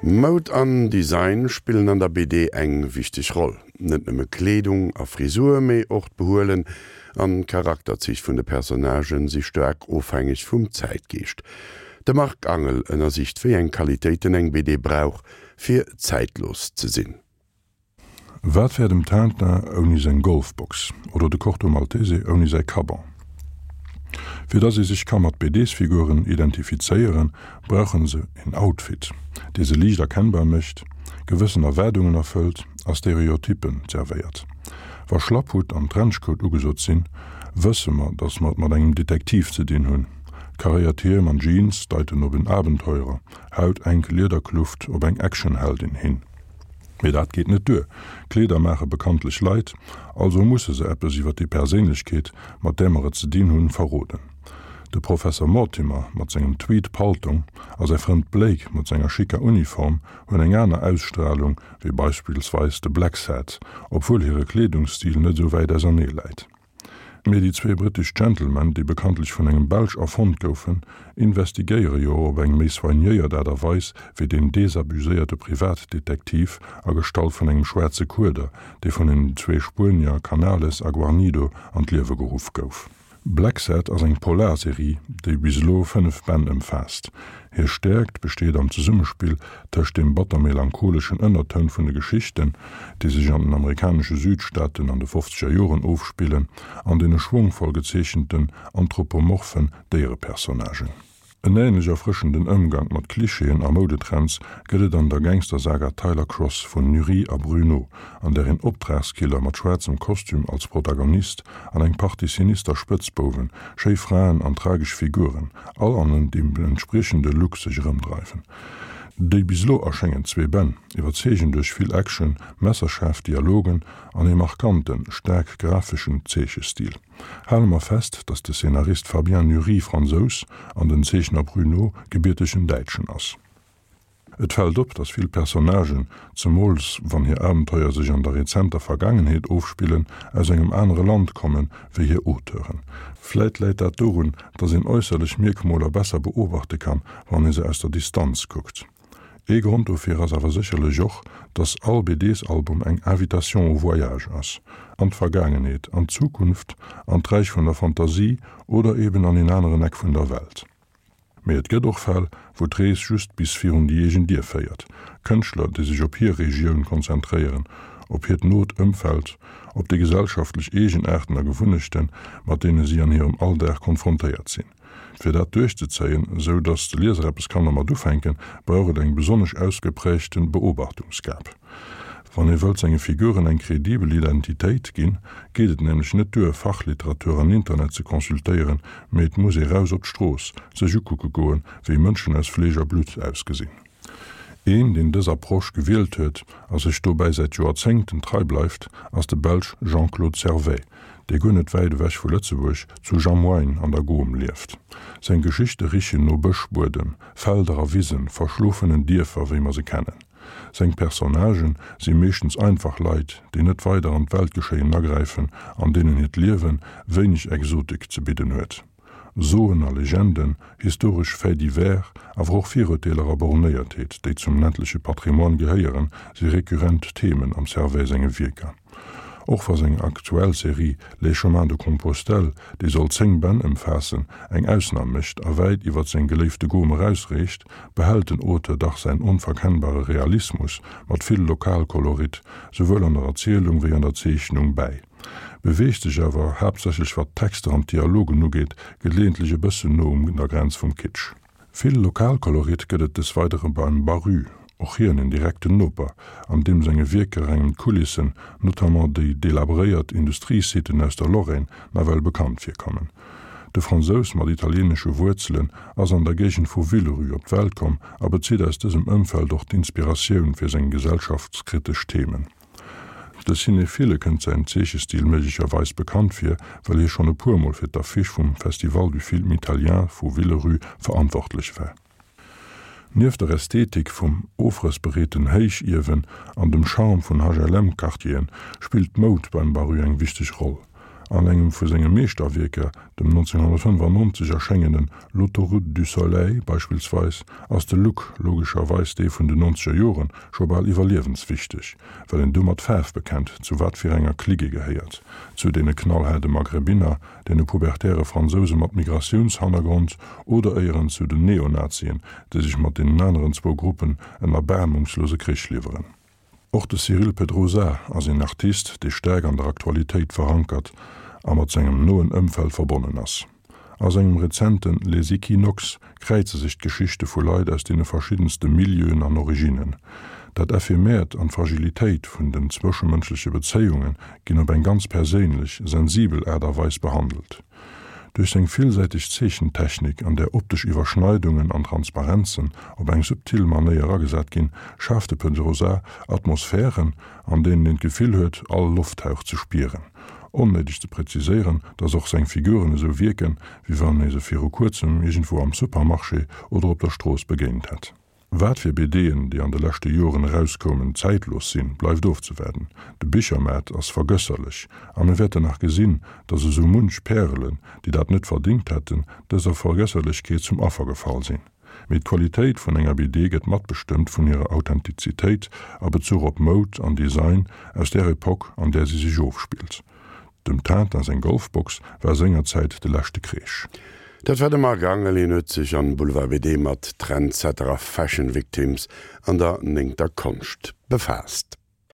Moud an Design spillen an der BD eng wichteg Roll. Net nëmme Kleedung a Frisur, mee och d'Behuelen an d'Charakterzich vun de Personnagen si staark ofhängeg vum Zäitgeescht. De Marc Angel ënnersicht wéi eng Qualitéiten eng BD brauch, fir zäitlos ze sinn. Wat wär dem Tintin ouni seng Golfbox oder de Corto Maltese ouni säi Caban? Fir dass ee sech ka mat BDs-Figuren identifizéieren, brauche se een Outfit, dee se liicht erkennbar mécht, gewëssen Erwaardungen erfëllt a Stereotyppen zerwéiert. Wa Schlapphutt an Trenchcoat ugesot sinn, wësse mer, dass mer et mat engem Detektiv ze dinn hunn. Karéiert Hiem an Jeans deiten op en Abenteurer, hautenk Liederkluft op eng Actionheldin hin. Mee dat geet net duer, Kleeder maache bekanntlech Leit, also musse se eppes iwwer déi Perséinlechkeet, mat där mer et ze dinn hunn, verroden. De Professer Mortimer mat sengem Tweed-Paltong a säi Frënd Blake mat senger schicker Uniform hunn eng aner Ausstralung wéi beispillsweis de Blacksad, obwuel hire Kleedungsstil net esou wäit ausernee läit. Mee déi zwee brittesch Gentlemen, déi bekanntlech vun engem Belsch erfonnt goufen, investigéiere jo op eng méi soignéiert Aart a Weis wéi deen desabuséierte Privatdetektiv a Gestalt vun engem schwaarze Kueder, dee vun den zwee Spuenier Canales a Guarnido an d'Liewe geruff gouf. Blacksad ass eng Polarserie, déi bis elo 5 Bänn ëmfaasst. Hir Stäerkt besteet am Zesummespill tëscht deem batter-melancholeschen Ënnertoun vun de Geschichten, déi sech an den amerikanesche Südstaaten an de fofzeger Joren ofspillen, an deene schwongvoll gezeechenten anthropomorphen Déierepersonnagen. En änlech erfrëschenden Ëmgank mat Klischeeën a Moudetrends gëtt et an der Gangstersaga Tyler Cross vun Nury a Bruno, an där een Optragskiller mat schwaarzem Kostüm als Protagonist an eng Partie sinister Spëtzbouwen, schéi Fraen an tragesch Figuren, all an dem entspriechende Look sech erëmdreiwen. Déi bis elo erschéngend zwee Bänn iwwerzeegen duerch vill Action, messerschaarf Dialogen an ee markanten, staark grafeschen Zeechestil. Hale mer fest, datt de Szenarist Fabien Nury Fransous an den Zeechner Bruno gebiertegen Däitschen ass. Et fält op, datt vill Personnagen, zemools wann hir Abenteuer sech an der rezenter Vergaangenheet ofspillen, aus engem anere Land kommen, wéi hir Auteuren. Vläit läit dat dorun, datt een äusserlech Mierkmoler besser beobachte kann, wann ee se aus der Distanz kuckt. Ee Grond dofir ass awer sécherlech och, datt all BDs-Album eng Invitation au voyage ass, an d'Vergaangenheet, an d'Zukunft, an d'Räich vun der Fantasie oder eben an een aneren Eck vun der Welt. Mee et gëtt och Fäll, wou d'Rees just bis virun déi eegen Dier féiert. Kënschtler, déi sech op hir Regioun konzentréieren, op hiert not Ëmfeld, op déi gesellschaftlech Eegenaarten a Gewunnechten, mat deene si an hirem Alldag konfrontéiert sinn. Fir dat duerchzezéien, esou datt de Lieser eppes kann dermat ufänken, brauch et eng besonnesch ausgeprägte Beobachtungsgab. Wann ee wëllt senge Figuren eng kredibel Identitéit ginn, geet et nämlech net duer, Fachliteratur an Internet ze consultéieren, mee et muss ee raus op d'Strooss, sech ukucke goen, wéi Mënschen aus Fleesch a Blutt ausgesinn. Een, deen dës Approche gewielt huet a sech dobäi säit Joerzéngten trei bleift, ass de Belsch Jean-Claude Servais, dee guer net wäit ewech vu Lëtzebuerg, zu Jamoigne an der Gaume lieft. Seng Geschichte richen no Bëschbuedem, Felder a Wisen, verschlofenen Dierfer, wéi mer se kennen. Seng Personnagen si meeschtens einfach Leit, déi net weider an d'Weltgeschéien agräifen an deenen hiert Liewe wéineg Exotik ze bidden huet. Soen a Legenden, historesch Faits divers, awer och Virurteeler a Bornéiertheet, déi zum ländleche Patrimoine gehéieren, si rekurrent Themen am Servais senge Wierker. Och wa seng aktuell Serie Les chemins de Compostelle, déi soll 10 Bänn ëmfaassen, eng Ausnam mécht a wäit iwwer seng geléifte Gom erausreecht, behält den Auteur dach säin onverkennbare Realismus mat vill Lokalkolorit, souwuel an der Erzielung wéi an der Zeechnung, bäi, beweegt sech awer, haaptsächlech wat d'Texter an d'Dialogen ugeet, geleeëntlech e bëssen no un der Grenz vum Kitsch. Vill Lokalkolorit gëtt et des Weidere beim Baru, och hien en direkten Noper, an deem senge Wierker engem d'Kulissen, notamment déi delabréiert Industriesiten aus der Lorraine, nawell bekannt virkommen. De Fransous mat italieenesche Wuerzelen ass an der Géigend vu Villerupt op d'Welt komm a bezitt aus dësem Ëmfeld och d'Inspiratioun fir seng gesellschaftskritesch Themen. De Cinephile kënnt säin Zeechestil méiglecherweis bekannt vir, well hie schonn e puer Mol fir d'Affiche vum Festival du Film Italien vu Villerupt verantwortlech war. Nieft der Ästhetik vum ofrëssbereeten Héichiewen an dem Charme vun HLM-Quartieren spillt d'Moud beim Baru eng wichteg Roll. An engem vu senge Meeschterwierker, dem 1995 erschéngenen L'autoroute du soleil beispillsweis, ass de Look, logescherweis dee vun den nonzeger Joren, scho bal iwwerliewenswichteg, well een du mat Faarf bekennt, zu wat fir enger Clique ee gehéiert, zu deene knallhaarde Maghrebiner, deene pubertäre Fransouse mat Migratiounshannergrond oder éieren zu den Neonazien, déi sech mat deenen aneren zwou Gruppen en erbaarmungslose Krich liwweren. Och de Cyril Pedrosa ass een Artist, dee staark an der Aktualitéit verankert a mat sengem noen Ëmfeld verbonnen ass. A sengem rezente Les Equinoxes kräize sech d'Geschichte vu Leit aus deene verschiddenste Milieuen an Originnen. Dat Ephemeert an d'Fragilitéit vun den zwëschemënschleche Bezéiunge ginn op eng ganz perséinlech, sensibel Aart a Weis behandelt. Duerch seng villsäiteg Zeechentechnik, an där optesch Iwwerschneidungen an Transparenzen op eng subtil Manéier agesat ginn, schaaft de Pedrosa Atmosphären, an deenen een d'Gefill huet, all Lofthauch ze spieren. Onnéideg ze präziséieren, dass och seng Figuren esou wierken, wéi wann ee se viru kuerzem iergendwou am Supermarché oder op der Strooss begéint hätt. Wat fir BDen, déi an de leschte Joren erauskoumen, zäitlos sinn, bleift ofzewaarden. De Bichermaart ass vergësserlech a mir wäerten nach gesinn, dass esou munch Pärelen, déi dat net verdingt hätten, dëser Vergësserlechkeet zum Affer gefall sinn. Mee d'Qualitéit vun enger BD gëtt matbestëmmt vun hirer Authentizitéit a Bezuch op Moud an Design aus där Epoque, an där si sech ofspillt. Dem Tintin seng Golfbox war sengerzäit de leschte Kreesch. Dat war de Marc Angel. Hien huet sech an Boulevard BD mat Trendsetter a Fashion Victims an der néngter Konscht befaasst.